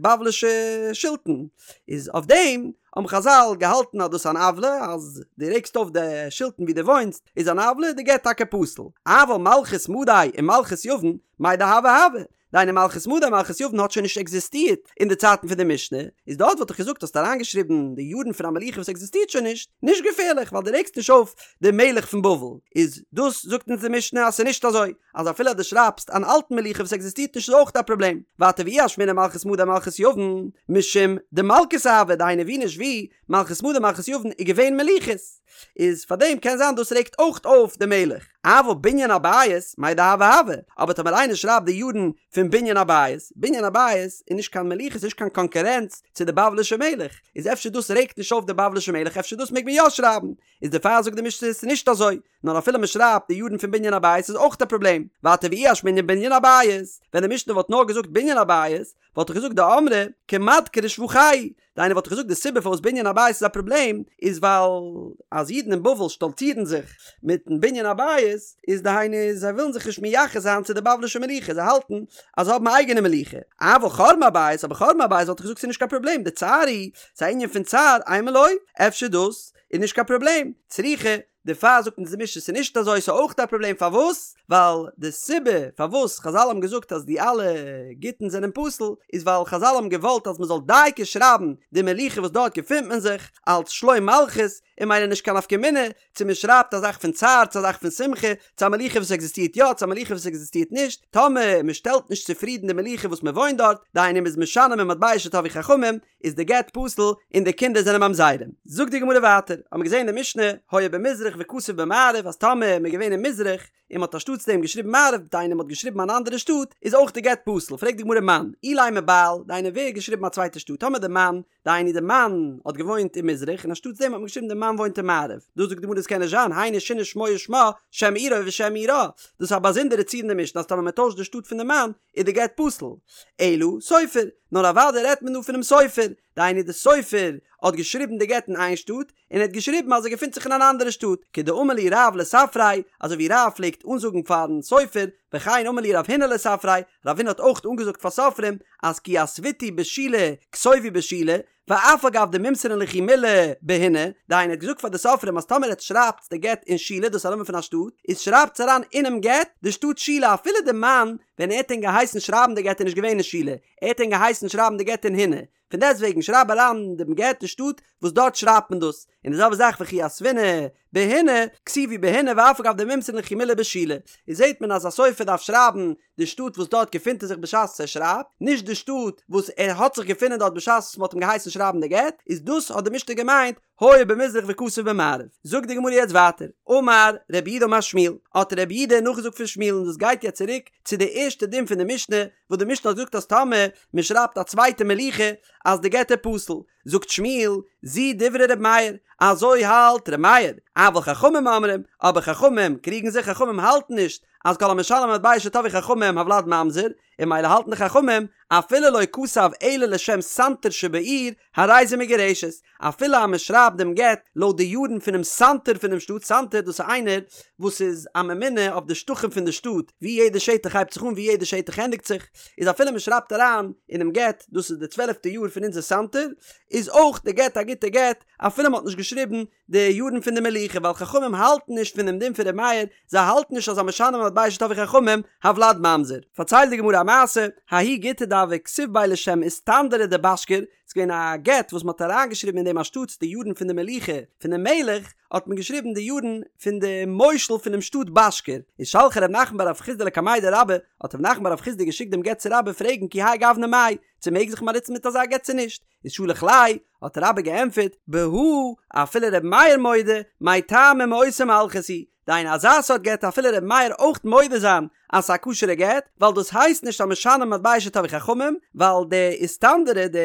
בבלישע שלטון, איז אויף דעם האבן חזל געהאלטן אז דאס איז אן עוולה, אז דו רעגסט אויף די שלטון ווי דו וואוינסט איז אן עוולה, די גט טאקע פסול. אבל מלכות מדי און מלכות יוון, מאי דהוה הוה, דהיינו מלכות מדי מלכות יוון האט שוין נישט עקזיסטירט אין די צייטן פון די משנה, איז דארט וואלט איך געזאגט האסט אריינגעשריבן די יארן פון א מלוכה וואס עקזיסטירט שוין נישט, נישט געפערליך ווייל דו רעגסט נישט אויף די מלך פון בבל, איז דאס זאגט אונז די משנה אז ס'איז נישט אזוי, אז אפילו אז דו שרייבסט אן אלטן מלוכה וואס עקזיסטירט נישט איז אויך א פראבלעם, ווייטער ואי אשמעינן מלכות מדי מלכות יוון, משום דמלכותא הוה דהיינו ווי נישט ווי, מלכות מדי מלכות יוון איז געווען מלוכות, איז פאר דעם קען זיין דאס רעגט אויך אויף די מלך. אבל בנין הבית, מאי דהוה הוה, אבער טאמער איינער שרייבט די יארן פון בנין הבית, בנין הבית איז נישט קיין מלוכה ס'איז נישט קיין קאנקורענץ צו די בבלישע מלך, איז אפשר דאס רעגט נישט אויף די בבלישע מלך אפשר דאס מעג מען יא שרייבן, איז דערפאר זאגט די משנה ס'איז נישט אזוי, נאר אפילו מען שרייבט די יארן פון בנין הבית איז אויך א פראבלעם, ווייטער ואי אשמעינן בנין הבית, ווען די משנה וואלט נאר געזאגט בנין הבית, וואלט איך געזאגט דאמרי כמדכרי שבחייהו, דהיינו וואלט איך געזאגט די סיבה פארוואס בנין הבית איז א פראבלעם איז ווייל אז אידן אין בבל שטאלצירן זיך מיטן בנין הבית איז דהיינו זיי ווילן זיך נישט מייחס זיין צו די בבלישע מלוכה זיי האלטן אז זיי האבן א אייגענע מלוכה, אבל חורבן הבית אבער חורבן הבית וואלט איך געזאגט ס'איז נישט קיין פראבלעם דצער הוא ס'איז א ענין פון צער אימא לא אפשר דאס איז נישט קיין פראבלעם צריכא דערפאר זאגט אונז די משנה ס'איז נישט אזוי ס'איז אויך א פראבלעם פארוואס? ווייל די סיבה פארוואס חזל האבן געזאגט אז די אלע גיטין זענען פסול איז ווייל חזל האבן געוואלט אז מ'זאל דייקא שרייבן די מלוכה וואס דארט געפינט מען זיך אלץ שלום מלכות און ממילא נישט קיין נפקא מינה צו מ'שרייבט א זאך פון צער צו א זאך פון שמחה צו א מלוכה וואס עקזיסטירט יא צו א מלוכה וואס עקזיסטירט נישט טאמער מ'שטעלט נישט צופרידן די מלוכה וואס מ'וואוינט דארט דהיינו מ'איז משנה ממטבע שטבעו חכמים איז די גט פסול און די קינדער זענען ממזרים. זאגט די גמרא ווייטער, האבן מיר געזען אין די משנה, היה במזרח וכתב במערב אז טאמער מ'איז געווען אין מזרח און מ'האט אנשטאטס דעם געשריבן מערב דהיינו מ'האט געשריבן אן אנדערע שטאט איז אויך די גט פסול, פרעגט די גמרא מאן, אילימא בעל, דהיינו ווער האט געשריבן א צווייטע שטאט, טאמער די מאן, דהיינו די מאן האט געוואוינט אין מזרח און אנשטאטס דעם האט מען געשריבן די מאן וואוינט אין מערב, דא זאגט די גמרא דאס קען נישט זיין, היינו שינה שמו ושמה, שם עירו ושם עירה, דאס איז א באזונדערע ציור אין די משנה אז טאמער מ'טוישט די שטאט פון די מאן איז די גט פסול, אלא סופר, נאר אוודאי רעדט מען דא פונעם סופר, דהיינו די סופר האט געשריבן די גט אין איין שטאט, און ער האט געשריבן אז ער געפינט זיך אין אן אנדערע שטאט, כדאמר להו רב לספריה, אזוי ווי רב פלעגט אנזאגן פארן סופר, וכן אמר להו רב הונא לספרי, רב הונא האט אויך אנגעזאגט פאר סופרים אז כי יתביתו בשילה כתובו בשילה, ואף על גב דמימסרן לכו מילי בהינה, דהיינו ער האט געזאגט פאר די סופרים אז טאמער עטס שרייבטס די גט אין שילה דאס איז א נאמען פון א שטאט, איז שרייבטס אריין אינעם גט די שטאט שילה אפילו די מאן ווען ער האט ענק געהייסן שרייבן די גט איז נישט געווען אין שילה, ער האט ענק געהייסן שרייבן די גט אין הינה, פון דעסטוועגן שרייב אריין דעם גט די שטאט וואס דארט שרייבט מען דאס, און די זעלבע זאך וכי יתבינהו בהינה, כתיבו בהינה ואף על גב דמימסרן לכו מילי בשילה, איז זעט מען אז א סופר דארף שרייבן די שטאט וואס דארט געפינט ער זיך בשעת ער שרייבט, נישט די שטאט וואס ער האט זיך געפונען דארט בשעת וואס מען האט אים געהייסן שרייבן די גט, איז דאס האט די משנה געמיינט היה במזרח וכתב במערב. זאגט די גמרא יעצט ווייטער, אמר רב יהודה אמר שמואל, האט רב יהודה נאכגעזאגט פון שמואל און דאס גייט יעצט צוריק צו די ערשטע דין פון די משנה, וואס די משנה האט געזאגט אז טאמער מען שרייבט א צווייטע מלוכה אז די גט איז פסול, זאגט שמואל, זו דברי ר' מאיר, אזוי האלט ר' מאיר, אבל חכמים אומרים, אבער חכמים קריגן זיך, חכמים האלטן נישט אז כל המשלם מטבע שטבעו חכמים הולד ממזר, און ממילא האלטן די חכמים, אפילו לא כתב אלא לשם סנטר שבעיר, הרי זו מגורשת, אפילו אז מען שרייבט דעם גט לויט די יארן פונעם סנטר פונעם שטאט, סנטר דאס איז איינער וואס איז א ממונה אויף די שטחים פון די שטאט, ווי יעדע שטח הייבט זיך אן ווי יעדע שטח ענדיגט זיך, איז אפילו מען שרייבט אריין אינעם גט דאס איז די צוועלפטע יאר פון אונזער סנטר, איז אויך די גט א גוטע גט אפילו מען האט נישט געשריבן די יארן פון די מלוכה ווייל חכמים האלטן נישט פון דעם דין פון ר' מאיר, זיי האלטן נישט אז המשנה מטבע שטבעו חכמים הולד ממזר. פארציילט די גמרא א מעשה, ההוא גיטא דהוה כתיב ביה לשם איסטנדרא דבשכר, ס'איז געווען א גט וואס מ'האט אריינגעשריבן אין דעם אנשטאטס די יארן פון די מלוכה פונעם מלך, האט מען געשריבן די יארן פון די מושל פונעם שטאט בשכר, איז שלחיה רב נחמן בר רב חסדא לקמיה דרבה, האט רב נחמן בר רב חסדא געשיקט דעם גט צו רבה פרעגן כי האי גוונא מאי, צו מעג זיך מען באנוצן מיט אזא גט צו נישט, איז שלח ליה, האט רבה געענטפערט, בהא אפילו ר' מאיר מודה, מאי טעמא מאותה מלכות היא, דהיינו אזא סארט גט אפילו ר' מאיר אויך מודה זיין אז ס'איז א כשר'ע גט, ווייל דאס הייסט נישט המשנה מטבע שטבעו חכמים, ווייל די איסטנדרא די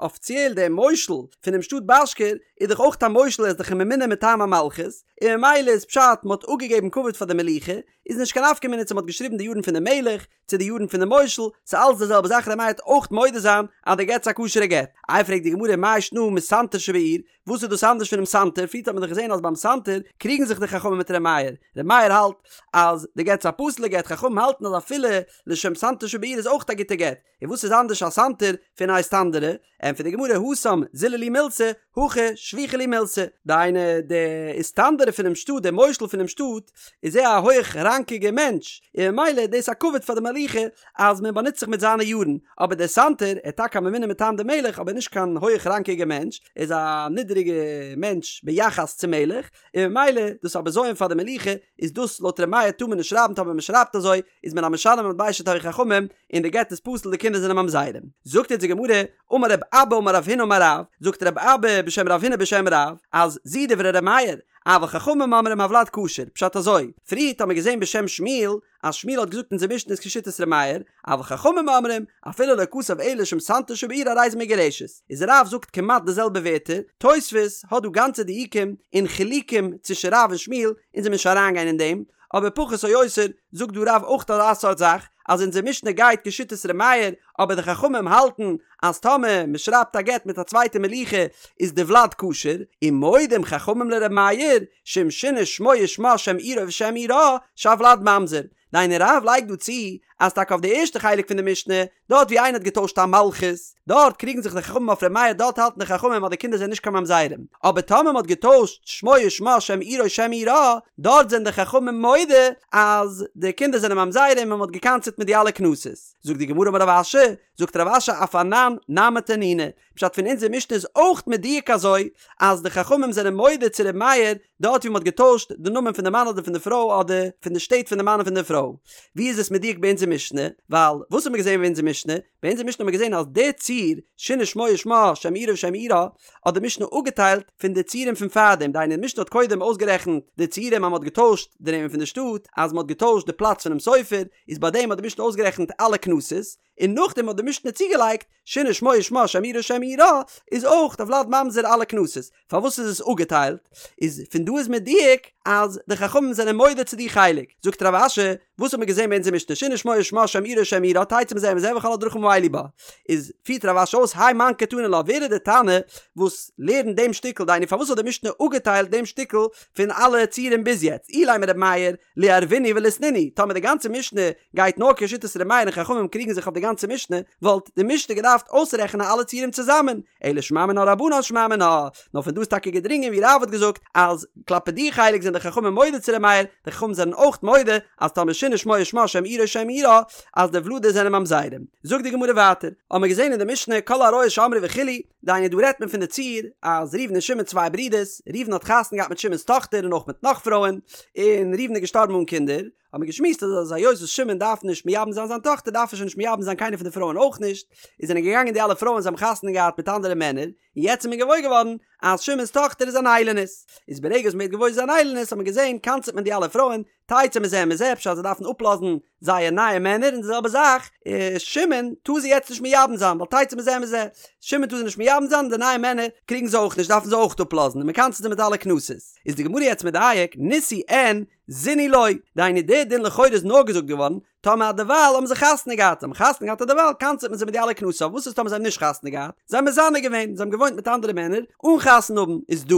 אפיציעל די מושל פונעם שטאט בשכר איז דאך אויך א מושל ער איז דאך א ממונה מטעם המלכות, און ממילא איז פשט מ'האט אפגעגעבן כבוד פאר די מלוכה, איז נישט קיין נפקא מינה צו מ'האט געשריבן די יארן פון די מלך, צו די יארן פון די מושל, ס'איז אלץ די זעלבע זאך ר' מאיר וועט אויך מודה זיין אז די גט איז א כשר'ע גט. איי פרעגט די גמרא מאי שנא מסנטר שבעיר, וואס איז דאס אנדערש פונעם סנטר, פריערט האט מען דאך געזען אז ביים סנטר קריגן זיך די חכמים מיט ר' מאיר, ר' מאיר האלט אז די גט איז א פסול'ע גט, חכמים האלטן אז אפילו לשם סנטר שבעיר איז אויך א גוטע גט, און וואס איז אנדערש א סנטר פון א איסטנדרא? ענטפערט די גמרא התם זילו להו מילתא, הכא שביחי להו מילתא, דהיינו די איסטנדרא פונעם שטאט, דער מושל פונעם שטאט, איז ער א הויך ראנקיגער מענטש, און ממילא איז דאס א כבוד פאר די מלוכה אז מען באנוצט זיך מיט זיינע יארן, אבער דער סנטר, ער איז טאקע א ממונה מטעם די מלך אבער נישט קיין הויך ראנקיגער מענטש, ער איז א נידעריגע מענטש ביחס צום מלך, און ממילא דאס א בזיון פאר די מלוכה, איז דאס לויט ר' מאיר טאר מען נישט שרייבן טאמער מען שרייבט אזוי איז מען א משנה מטבע שטבעו חכמים און די גט איז פסול די קינדער זענען ממזרים. זאגט אונז די גמרא, אמר רב אבא אמר רב הונא אמר רב, זאגט רב אבא בשם רב הונא בשם רב, אז זו דברי ר' מאיר, אבל חכמים אומרים הולד כשר, פשט אזוי, פריערט האט מען געזען בשם שמואל, אז שמואל האט געזאגט אונזער משנה איז כשיטת ר' מאיר, אבל חכמים אומרים, אפילו לא כתב אלא לשם סנטר שבעיר הרי זו מגורשת. איז רב זאגט כמעט די זעלבע ווערטער, תוספות האט דא גאנצע דיוקים און חילוקים צווישן רב און שמואל, אונז וועלן נישט אריינגיין אין דעם, אבער פחות או יותר זאגט דא רב אויך אזא סארט זאך, אז אונזער משנה גייט כשיטת ר' מאיר, אבער די חכמים האלטן אז טאמער מען שרייבט א גט מיט א צווייטע מלוכה איז די ולד כשר, ומודים חכמים לר' מאיר, שאם שינה שמו ושמה שם עירו ושם עירה, שהולד ממזר. דהיינו רב לייגט דא צו אז טאקע אויף די ערשטע חלק פון די משנה, דארט ווי איינער האט געטוישט א מלכות, דארט קריגן זיך די חכמים אויף ר' מאיר דארט האלטן די חכמים אז די קינדער זענען נישט קיין ממזרים, אבער טאמער מען האט געטוישט שמו ושמה שם עירו שם עירה, דארט זענען די חכמים מודה אז די קינדער זענען ממזרים און מען האט גע'קנס'עט מיט די אלע קנסות. זאגט די גמרא אמר רב אשי, זאגט רב אשי אף אנן נמי תנינא, פשט פון אונזער משנה איז אויך מדויק אזוי אז די חכמים זענען מודה צו ר' מאיר דארט ווי מען האט געטוישט די נאמען פון די מאן אדער פון די פרוי אדער פון די שטעט פון די מאן און פון די פרוי. ווי איז עס מדויק ביי אונזער משנה? ווייל וואס האט מען געזען ביי אונזער משנה? ביי אונזער משנה האט מען געזען אז די ציור שינה שמו ושמה שם עירו ושם עירה האט די משנה אפגעטיילט פון די ציורים פון פארדעם דהיינו די משנה האט קודם אויסגערעכנט די ציורים אז מען האט געטוישט די נעמען פון די שטאט אז מען האט געטוישט די פלאץ פונעם סופר איז ביי דעם האט די משנה אויסגערעכנט אלע קנסות. און נאכדעם האט די משנה צוגעלייגט שינה שמו ושמה שם עירו ושם עירה איז אויך די ולד ממזר אלע קנסות, פארוואס איז עס אפגעטיילט? איז פון דא איז מדויק אז די חכמים זענען מודה צו די חלק, זאגט רב אשי, וואס האט מען געזען ביי אונזער משנה שינה שמו ושמה שם עירו ושם עירה תצא מזה ומזה וכל הדרכים האלו בה, איז פירט רב אשי אויס האי מאן קתני לה ווער איז די תנא וואס לערנט דעם שטיקל דהיינו פארוואס האט די משנה אפגעטיילט דעם שטיקל פון אלע ציורים ביז יעצט אילימא ר' מאיר ליערבינהו וליתנינהו טאמער די גאנצע משנה גייט נאר כשיטת ר' מאיר און חכמים קריגן זיך אויף די גאנצע משנה וואלט די משנה געדארפט אויסרעכענען אלע ציורים צוזאמען אלא שמע מינה רבנן שמע מינה נאר פון דא איז טאקע געדרינגען ווי רב האט געזאגט אז כלפי די חלק זענען די חכמים מודה צו ר' מאיר די חכמים זענען אויך מודה אז טאמער שינה שמו ושמה שם עירו שם עירה אז די ולדות זענען ממזרים. זאגט די גמרא ווייטער, האבן מיר געזען אין די משנה כל העריות שאמרו וכו', דהיינו דא רעדט מען פון די ציור אז ראובן און שמעון צוויי ברידערס, ראובן האט חתונה געהאט מיט שמעון'ס טאכטער און אויך מיט נאך פרויען, און ראובן איז געשטארבן אן קינדער, האבן מיר געשמועסט אז אז היות וואס שמעון דארף נישט מייבם זיין זיין טאכטער דארף ער שוין נישט מייבם זיין קיינער פון די פרויען אויך נישט, איז זענען געגאנגען די אלע פרויען זיי האבן חתונה געהאט מיט אנדערע מענער, און יעצט איז מען געוואויר געווארן אז שמעון'ס טאכטער איז אן איילונית, איז ברגע וואס מען ווערט געוואויר זי איז אן איילונית האט מען געזען קנס'עט מען די אלע פרויען, תצא מזה ומזה פשט זיי דארפן אפלאזן זייער נייע מענער און די זעלבע זאך שמעון טאר זי יעצט נישט מייבם זיין ווייל תצא מזה ומזה שמעון טאר זי נישט מייבם זיין און די נייע מענער קריגן זיי אויך נישט דארפן זיי אויך אפלאזן און מען קנס'ט זיי מיט אלע קנסות איז די גמרא יעצט מדייק נישאו אין זינו לא דהיינו די דין לכאורה איז נאר געזאגט געווארן טאמער אדערווייל האבן זיי חתונה געהאט, זיי האבן חתונה געהאט אדערווייל קנס'עט מען זיי מיט די אלע קנסות, אבער וואס איז טאמער זיי האבן נישט חתונה געהאט, זיי האבן מזנה געווען, זיי האבן געוואוינט מיט אנדערע מענער אן חתונה האבן, איז דא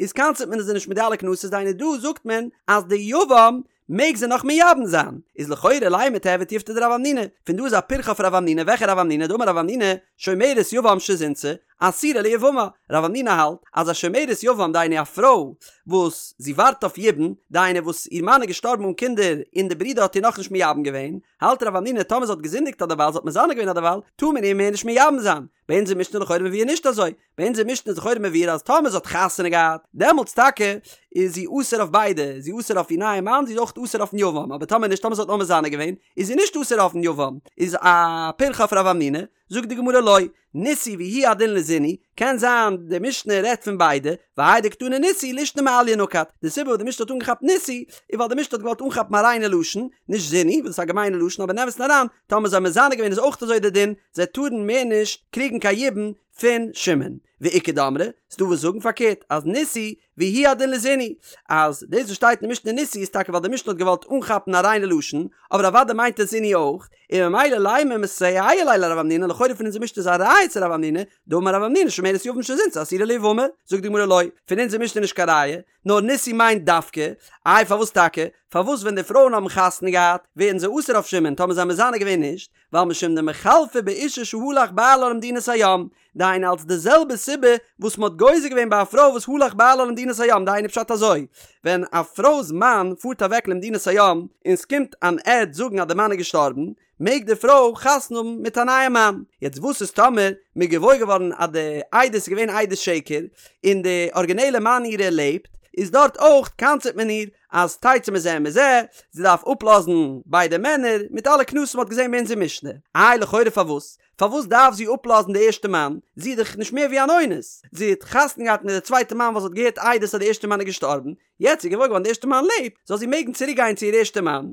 איז קנס'עט מען זיי נישט מיט די אלע קנסות, דהיינו דא זאגט מען אז די יבם מעג זיי נאך מייבם זיין, איז לכאורה לימא תיהוי תיובתא דרב המנונא, פון דא איז א פירכא אויף רב המנונא, וועלכע רב המנונא, דאמר רב המנונא, שומרת יבם שזינתה, אסורה ליבמה, רב המנונא האלט אז א שומרת יבם דהיינו א פרוי וואס זי ווארט אויף יבום, דהיינו וואס איר מאן איז געשטארבן אן קינדער און די ברודער האט איר נאכנישט מייבם געווען, האלט רב המנונא טאמער זי האט געזינדיגט אדערווייל זי האט מזנה געווען אדערווייל, טאר מען איר מער נישט מייבם זיין. ביי אונזער משנה לכאורה מבואר נישט אזוי, ביי אונזער משנה איז לכאורה מבואר אז טאמער זי האט חתונה געהאט, דעמאלטס טאקע איז זי אסור אויף ביידע, זי איז אסור אויף איר נייע מאן, זי איז אויך אסור אויפן יבם, אבער טאמער נישט, טאמער זי האט נאר מזנה געווען, איז זי נישט אסור אויפן יבם, איז א פירכא אויף רב המנונא, זאגט די גמרא לא, נישאו והוא הדין לזינו, קען זיין די משנה רעדט פון ביידע, והאי דקתני נישאו לישנא מעליא נקט, די סיבה וואס די משנה האט אנגעכאפט נישאו, איז ווייל די משנה האט געוואלט אנכאפן א ריינע לשון, נישט זינו, וואס איז א געמיינע לשון, אבער אין אמת'ן אריין, טאמער זיי האבן מזנה געווען איז אויך אזוי די דין, זיי טארן מער נישט קריגן קיין יבום פון שמעון. ואיכא דאמרי, ס'דא וואס זאגן פארקערט, אז נישאו והוא הדין לזינו, אז דאס וואס שטייט אין משנה נישאו איז טאקע ווייל די משנה האט געוואלט אנכאפן א ריינע לשון, אבער אוודאי מיינט עס זינו אויך, און ממילא לימא מסייע ליה לרב המנונא, לכאורה פון אונזער משנה איז א ראיה צו רב המנונא, דאמר רב המנונא שומרת יבם שזינתה אסורה ליבמה, זאגט די גמרא לא, פון אונזער משנה איז נישט קיין ראיה, נאר נישאו מיינט דווקא, איי פארוואס טאקע? פארוואס ווען די פרויען האבן חתונה געהאט ווערן זיי אסור אויף שמעון טאמער זיי האבן מזנה געווען נישט, ווייל משום דמיחלפי באשה שהלך בעלה למדינת הים, דהיינו אלס די זעלבע סיבה וואס מ'האט גוזר געווען ביי א פרוי וואס הלך בעלה למדינת הים, דהיינו פשט אזוי, ווען א פרוי'ס מאן פארט אוועק למדינת הים און ס'קומט אן עד זאגן אז די מאן איז געשטארבן, מעג די פרוי חתונה האבן מיט א נייע מאן. יעצט וואס איז טאמער מ'איז געוואויר געווארן אז די עדות איז געווען עדות שקר און די ארגינעלע מאן אירע לעבט, איז דארט אויך קנס'עט מען איר אז תצא מזה ומזה, זי דארף אפלאזן ביידע מענער, מיט אלע קנסות מ'האט געזען ביי אונזער משנה. איי לכאורה פארוואס? פארוואס דארף זי אפלאזן די ערשטע מאן? זי איז דאך נישט מער ווי אן אונס. זי האט חתונה געהאט מיט די צווייטע מאן ווייל זי האט געהערט עדות אז די ערשטע מאן איז געשטארבן, יעצט איז געוואויר געווארן די ערשטע מאן לעבט, זאל זי מעגן צוריק גיין צו איר ערשטע מאן.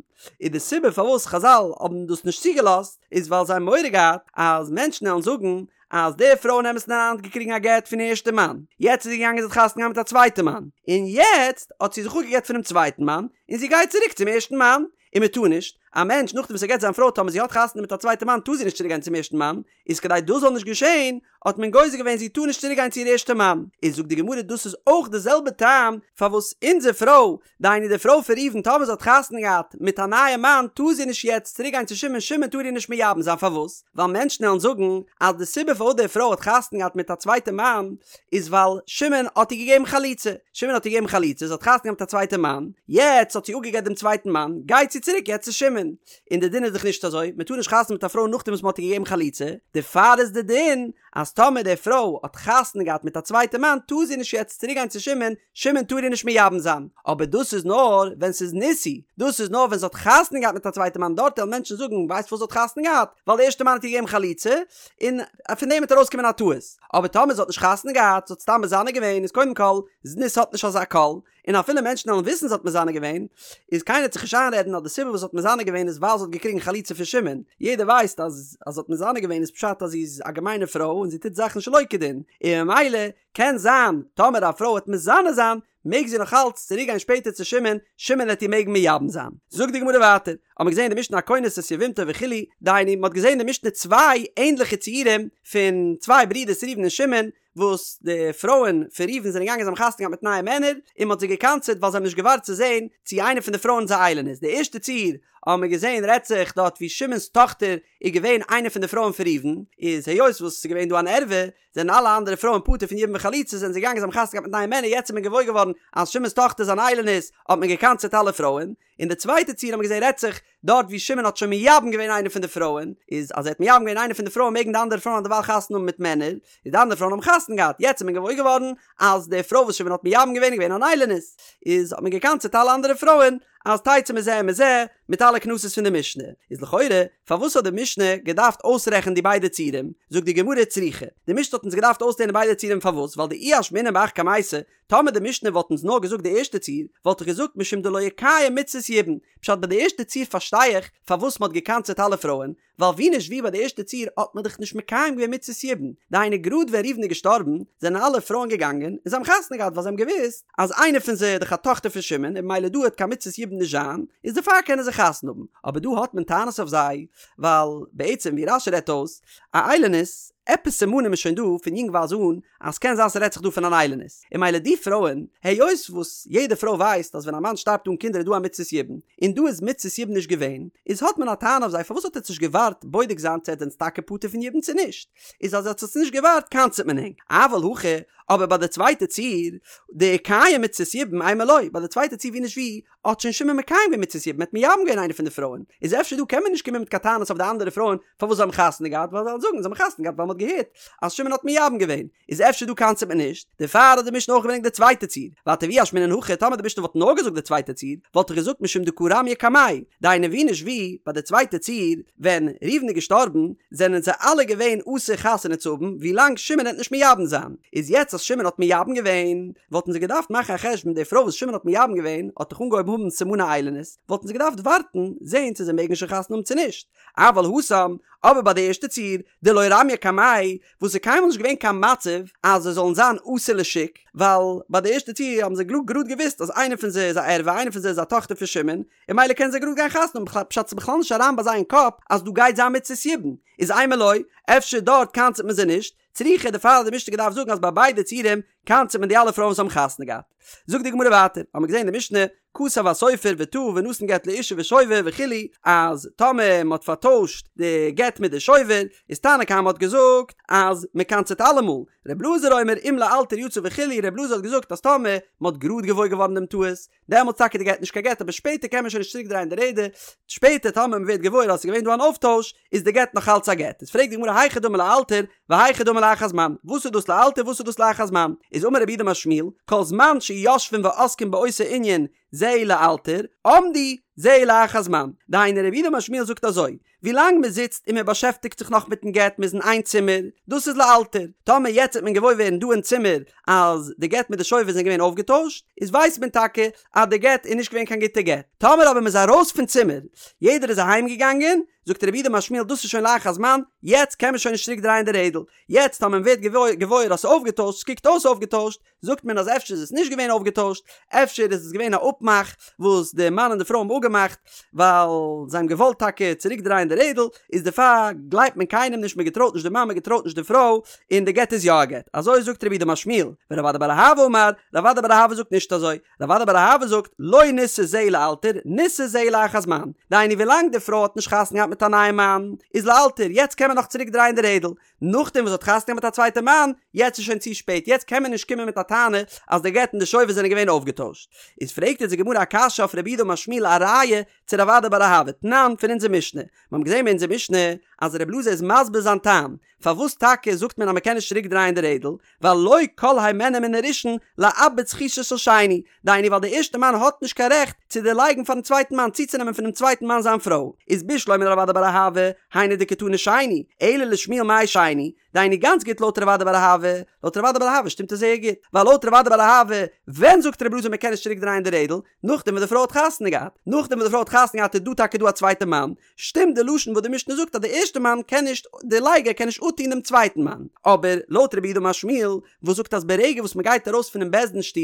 איז די סיבה פארוואס חזל האבן דאס נישט צוגעלאזט איז ווייל זיי האבן מורא געהאט אז מענטשן וועלן זאגן אז די פרוי אין אמת'ן אריין האט געקריגן א גט פון איר ערשטע מאן, יעצט איז זי געגאנגען זי האט חתונה געהאט מיט א צווייטע מאן, און יעצט האט זי זיך אפגעגט פונעם צווייטן מאן און זי גייט צוריק צום ערשטן מאן, און מען טאר נישט, א מענטש נאכדעם וואס ער גט זיין פרוי טאמער זי האט חתונה מיט א צווייטע מאן טאר זי נישט צוריק גיין צום ערשטן מאן, איז כדי דאס זאל נישט געשען האט מען גוזר געווען זי טאר נישט צוריק גיין צו איר ערשטע מאן, איז זאגט די גמרא דאס איז אויך די זעלבע טעם פארוואס אונזער פרוי, דהיינו די פרוי פון ראובן טאמער זי האט חתונה געהאט מיט א נייע מאן טאר זי נישט יעצט צוריק גיין צו שמעון, שמעון טאר איר נישט מייבם זיין פארוואס? ווייל מענטשן וועלן זאגן אז די סיבה פארוואס די פרוי האט חתונה געהאט מיט א צווייטע מאן איז ווייל שמעון האט איר געגעבן חליצה, שמעון האט איר געגעבן חליצה, זי האט חתונה געהאט מיט א צווייטע מאן, יעצט האט זי אפגעגט דעם צווייטן מאן, גייט זי צוריק יעצט צו שמעון, און די דין איז דאך נישט אזוי, מען טאר נישט חתונה מיט א פרוי נאכדעם וואס מען האט איר געגעבן חליצה, דערפאר איז די דין אז טאמער די פרוי האט חתונה געהאט מיט א צווייטע מאן טאר זי נישט יעצט צוריק גיין צו שמעון, שמעון טאר איר נישט מייבם זיין, אבער דאס איז נאר ווען ס'איז נישאו, דאס איז נאר ווען זי האט חתונה געהאט מיט א צווייטע מאן, דארט וועלן מענטשן זאגן ווייסט פארוואס זי האט חתונה געהאט? ווייל די ערשטע מאן האט איר געגעבן חליצה, און פון דעם וועט ארויסקומען א טעות, אבער טאמער זי האט נישט חתונה געהאט, זי האט סתם מזנה געווען, איז קודם כל, זנות האט נישט אזא קול, און אפילו מענטשן וועלן וויסן זי האט מזנה געווען, איז קיינער וועט זיך נישט איינרעדן אז די סיבה וואס זי האט מזנה געווען איז ווייל זי האט געקריגן חליצה פון שמעון, יעדער ווייסט אז אז זי האט מזנה געווען איז פשט אז זי איז א געמיינע פרוי און זי טוט זאכן שלא כדין, און ממילא קען זיין טאמער א פרוי וועט מזנה זיין מעג זי נאך אלץ צוריק גיין שפעטער צו שמעון, שמעון וועט איר מעגן מייבם זיין. זאגט די גמרא ווייטער, האט מען געזען אין די משנה הכונס את יבמתו וכו', דהיינו מען האט געזען אין די משנה צוויי ענדליכע ציורים פון צוויי ברידערס ראובן און שמעון, וואס די פרויען פון ראובן זענען געגאנגען זיי האבן חתונה געהאט מיט נייע מענער, און מען האט זיי געקנס'עט ווייל זיי האבן נישט געווארט צו זען צי איינע פון די פרויען איז א איילונית. די ערשטע ציור האבן מיר געזען רעדט זיך דארט ווי שמעון'ס טאכטער איז געווען איינע פון די פרויען פון ראובן, איז היות וואס ס'איז געווען דא אן ערווה, זענען אלע אנדערע פרויען פטור פון יבום וחליצה זענען זיי געגאנגען זיי האבן חתונה געהאט מיט נייע מענער יעצט איז מען געוואויר געווארן אז שמעון'ס טאכטער איז אן איילונית האט מען געקנס'עט אלע פרויען, און די צווייטע ציור האט מען געזען רעדט זיך דארט ווי שמעון האט שוין מייבם געווען איינע פון די פרויען, איז אז ער האט מייבם געווען איינע פון די פרויען מעגן די אנדערע פרויען דערווייל חתונה האבן מיט מענער, איז די אנדערע פרויען האבן חתונה געהאט, יעצט איז מען געוואויר געווארן אז די פרוי וואס שמעון האט מייבם געווען איז געווען אן איילונית, איז האט מען געקנס'עט אלע אנדערע פרויען אז תצא מזה ומזה מיט אלע קנסות פון די משנה, איז לכאורה פארוואס האט די משנה געדארפט אויסרעכענען די ביידע ציורים, זאגט די גמרא צריכא, די משנה האט אונז געדארפט אויסלערנען ביידע ציורים פארוואס ווייל דאי אשמעינן בהך קמייתא, טאמער די משנה וואלט אונז נאר געזאגט די ערשטע ציור, וואלט איך געזאגט משום דלא איקיים מצות יבום, פשט ביי די ערשטע ציור פארשטיי איך פארוואס מ'האט געקנס'עט אלע פרויען, ווייל ווי נישט ווי ביי די ערשטע ציור האט מען דאך נישט מקיים געווען מצות יבום, דהיינו גראד ווען ראובן איז געשטארבן זענען אלע פרויען געגאנגען און זיי האבן חתונה געהאט ווייל זיי האבן געוואוסט אז איינע פון זיי איז דאך א טאכטער פון שמעון און ממילא דא וועט קיין מצות יבום נישט זיין, איז דערפאר קענען זיי חתונה האבן, אבער דא האט מען טענות אויף זיי ווייל בעצם ווי רש"י רעדט אויס א איילונית, עפעס סימנים איז שוין דא פון יונגווייז אן אז ס'קען זיין ס'רעדט זיך דא פון אן איילונית, און ממילא די פרויען, היות וואס יעדע פרוי ווייסט אז ווען א מאן שטארבט אן קינדער איז דא א מצות יבום, און דא איז מצות יבום נישט געווען, איז האט מען א טענה אויף זיי פארוואס האט עטץ נישט געווארט בודק זיין צו עטץ זענטס טאקע פטור פון יבום צו נישט, איז אז עטץ האטס נישט געווארט קנס'עט מען ענק, אבל הכא, אבער ביי די צווייטע ציור, דאיקיים מצות יבום אימא לא, ביי די צווייטע ציור ווי נישט ווי, האט שוין שמעון מקיים געווען מצות יבום, ער האט מייבם געווען איינע פון די פרויען, איז אפשר דא קען מען נישט קומען מיט קיין טענות אויף די אנדערע פרויען פארוואס זיי האבן חתונה געהאט, ווייל זיי וועלן זאגן זיי האבן חתונה געהאט ווייל מען האט געהערט אז שמעון האט מייבם געווען, איז אפשר דא קנס'עט מען נישט, דערפאר האט די משנה אויך געברענגט די צווייטע ציור, ווייטער ואי אשמעינן הכא, טאמער די משנה וואלט נאר געזאגט די צווייטע ציור, וואלט איך געזאגט משום דקא רמיא קמיה, דהיינו ווי נישט ווי, ביי די צווייטע ציור, ווען ראובן איז געשטארבן, זענען זיי אלע געווען אסור חתונה צו האבן, ווילאנג שמעון העט נישט מייבם זיין, איז יעצט אז שמעון האט מייבם געווען, וואלטן זיי געדארפט מאכן א חשבון די פרוי וואס שמעון האט מייבם געווען האט דאך אנגעהויבן האבן סימני איילונית, וואלטן זיי געדארפט ווארטן זעהן צו זיי מעגן שוין חתונה האבן צו נישט, אבל התם, אבער ביי די ערשטע ציור, דלא רמיא קמיה, וואס איז קיינמאל נישט געווען קיין מצב אז זיי זאלן זיין אסור לשוק, ווייל ביי די ערשטע ציור האבן זיי גראד געוואוסט אז איינע פון זיי איז א ערווה איינע פון זיי איז א טאכטער פון שמעון, און ממילא קענען זיי גראד גיין חתונה האבן, פשט ס'איז בכלל נישט אריין ביי זיי אין קאפ אז דא גייט זיין מצות יבום, איז אימא לא, אפשר דארט קנס'ט מען זיי נישט, צריכא דערפאר האט די משנה געדארפט זאגן אז ביי ביידע ציורים קנס'ט מען די אלע פרויען וואס האבן חתונה געהאט. זאגט די גמרא ווייטער, האמיר געזען אין די משנה, כתב הסופר וטעה ונתן גט לאשה ושובר וכו', אז טאמער מען האט פארטוישט די גט מיט די שובר, איז תנא קמא האט געזאגט אז מען קנס'ט אלעמאל, ר' אלעזר אומר אם לאלתר יצא וכו', ר' אלעזר האט געזאגט אז טאמער מען האט גראד געוואויר געווארן דעם טעות, דעמאלטס טאקע די גט נישט קיין גט אבער שפעטער קען מען שוין נישט צוריק דרייען די רעדער, שפעטער טאמער מען ווערט געוואויר אז עס איז געווען דא אן אויפטויש איז די גט נאך אלץ א גט, איז פרעגט די גמרא היכי דמי לאלתר והיכי דמי לאחר זמן, וואס איז דאס לאלתר וואס איז דאס לאחר זמן, איז אמר רב יהודה אמר שמואל, כל זמן שיושבין ועוסקין באותו ענין זהו לאלתר, עמדו זהו לאחר זמן, דהיינו רב יהודה אמר שמואל זאגט אזוי, ווילאנג מען זיצט און מען באשעפטיגט זיך נאך מיטן גט, מען איז אין איין צימער, דאס איז לאלתר. טאמער יעצט וועט מען געוואויר ווערן דא אין צימער אז די גט מיט די שובר זענען געווען אויפגעטוישט, איז ווייסט מען טאקע אז די גט איז נישט געווען קיין גוטע גט. טאמער אבער מען איז ארויס פון צימער, יעדער איז אהיים געגאנגען, זאגט רב יהודה אמר שמואל דאס איז שוין לאחר זמן, יעצט קען מען שוין נישט צוריק דרייען די רעדל. יעצט טאמער מען ווערט געוואויר אז ס'איז אויפגעטוישט, ס'קוקט אויס אויפגעטוישט, זאגט מען אז אפשר איז עס נישט געווען אויפגעטוישט, אפשר איז עס געווען א אפמאך וואס די מאן און די פרוי האבן אפגעמאכט, ווייל זיי האבן געוואלט טאקע צוריק דרייען די רעדל, איז דערפאר גלייבט מען קיינעם נישט, מען געטרויט נישט די מאן, מען געטרויט נישט די פרוי, און די גט איז יא א גט. אזוי זאגט רב יהודה אמר שמואל, ורב אדא בר אהבה אמר, רב אדא בר אהבה זאגט נישט אזוי, רב אדא בר אהבה זאגט, לא נישא זהו לאלתר, נישא זהו לאחר זמן, דהיינו ווילאנג די פרוי האט נישט חתונה געהאט מיט א נייעם מאן, איז לאלתר, יעצט קען מען נאך צוריק דרייען די רעדל, נאכדעם וואס האט חתונה געהאט מיט א צווייטע מאן, יעצט איז שוין צו שפעט, יעצט קען מען נישט קומען מיט א טענה אז די גט און די שובר זענען געווען אויפגעטוישט. איז פרעגט יעצט די גמרא א קשיא אויף רב יהודה אמר שמואל א ראיה צו רב אדא בר אהבה תנן פון אונזער משנה, מיר האבן געזען אין אונזער משנה אז רב אלעזר איז מסביר זיין טעם פארוואס טאקע זאגט מען אז מען קען נישט צוריק דרייען די רעדל, ווייל לא כל הימנו מן הראשון לאבד זכותו של שני, דהיינו ווייל די ערשטע מאן האט נישט קיין רעכט צו דערלייגן פארן צווייטן מאן צוצונעמען פונעם צווייטן מאן זיין פרוי, איז בשלמא לרב אדא בר אהבה, היינו דקתני שני, אלא לשמואל מאי שני, דהיינו גאנץ גוט לויט רב אדא בר אהבה, לויט רב אדא בר אהבה שטימט עס זייער גוט, ווייל לויט רב אדא בר אהבה ווען זאגט רבי אלעזר מען קען נישט צוריק דרייען די רעדל? נאכדעם וואס די פרוי האט חתונה געהאט, נאכדעם וואס די פרוי האט חתונה געהאט איז דא טאקע דא א צווייטע מאן, שטימט די לשון וואס די משנה זאגט אז די ערשטע מאן קען נישט, דער לייגער קען נישט אפטון דעם צווייטן מאן, אבער לויט רב יהודה אמר שמואל וואס זאגט אז ברגע וואס מען גייט ארויס פונעם בית דין שטוב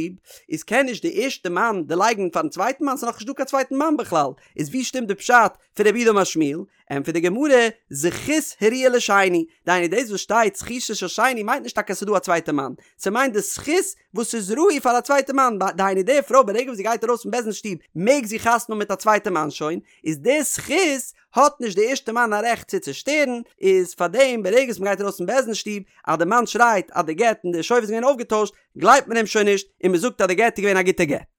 איז קען נישט די ערשטע מאן דערלייגן פארן צווייטן מאן, ס'איז נאכנישט דא קיין צווייטן מאן בכלל, איז ווי שטימט די פשט פון רב יהודה אמר שמואל? ענטפערט די גמרא, זכות הראויה לשני, דהיינו דאס וואס שטייט זכותו של שני מיינט נישט טאקע אז ס'איז דא א צווייטע מאן, ס'מיינט די זכות וואס איז ראוי פאר א צווייטע מאן, דהיינו די פרוי ברגע וואס זי גייט ארויס פון בית דין שטוב מעג זי חתונה האבן מיט א צווייטע מאן שוין, איז די זכות האט נישט די ערשטע מאן א רעכט צו צושטערן, איז פארדעם ברגע וואס מ'גייט ארויס פון בית דין שטוב אז די מאן שרייט אז די גט און די שובר איז געווען אויפגעטוישט גלייבט מען אים שוין נישט און מ'זאגט אז די גט איז געווען א גוטע גט.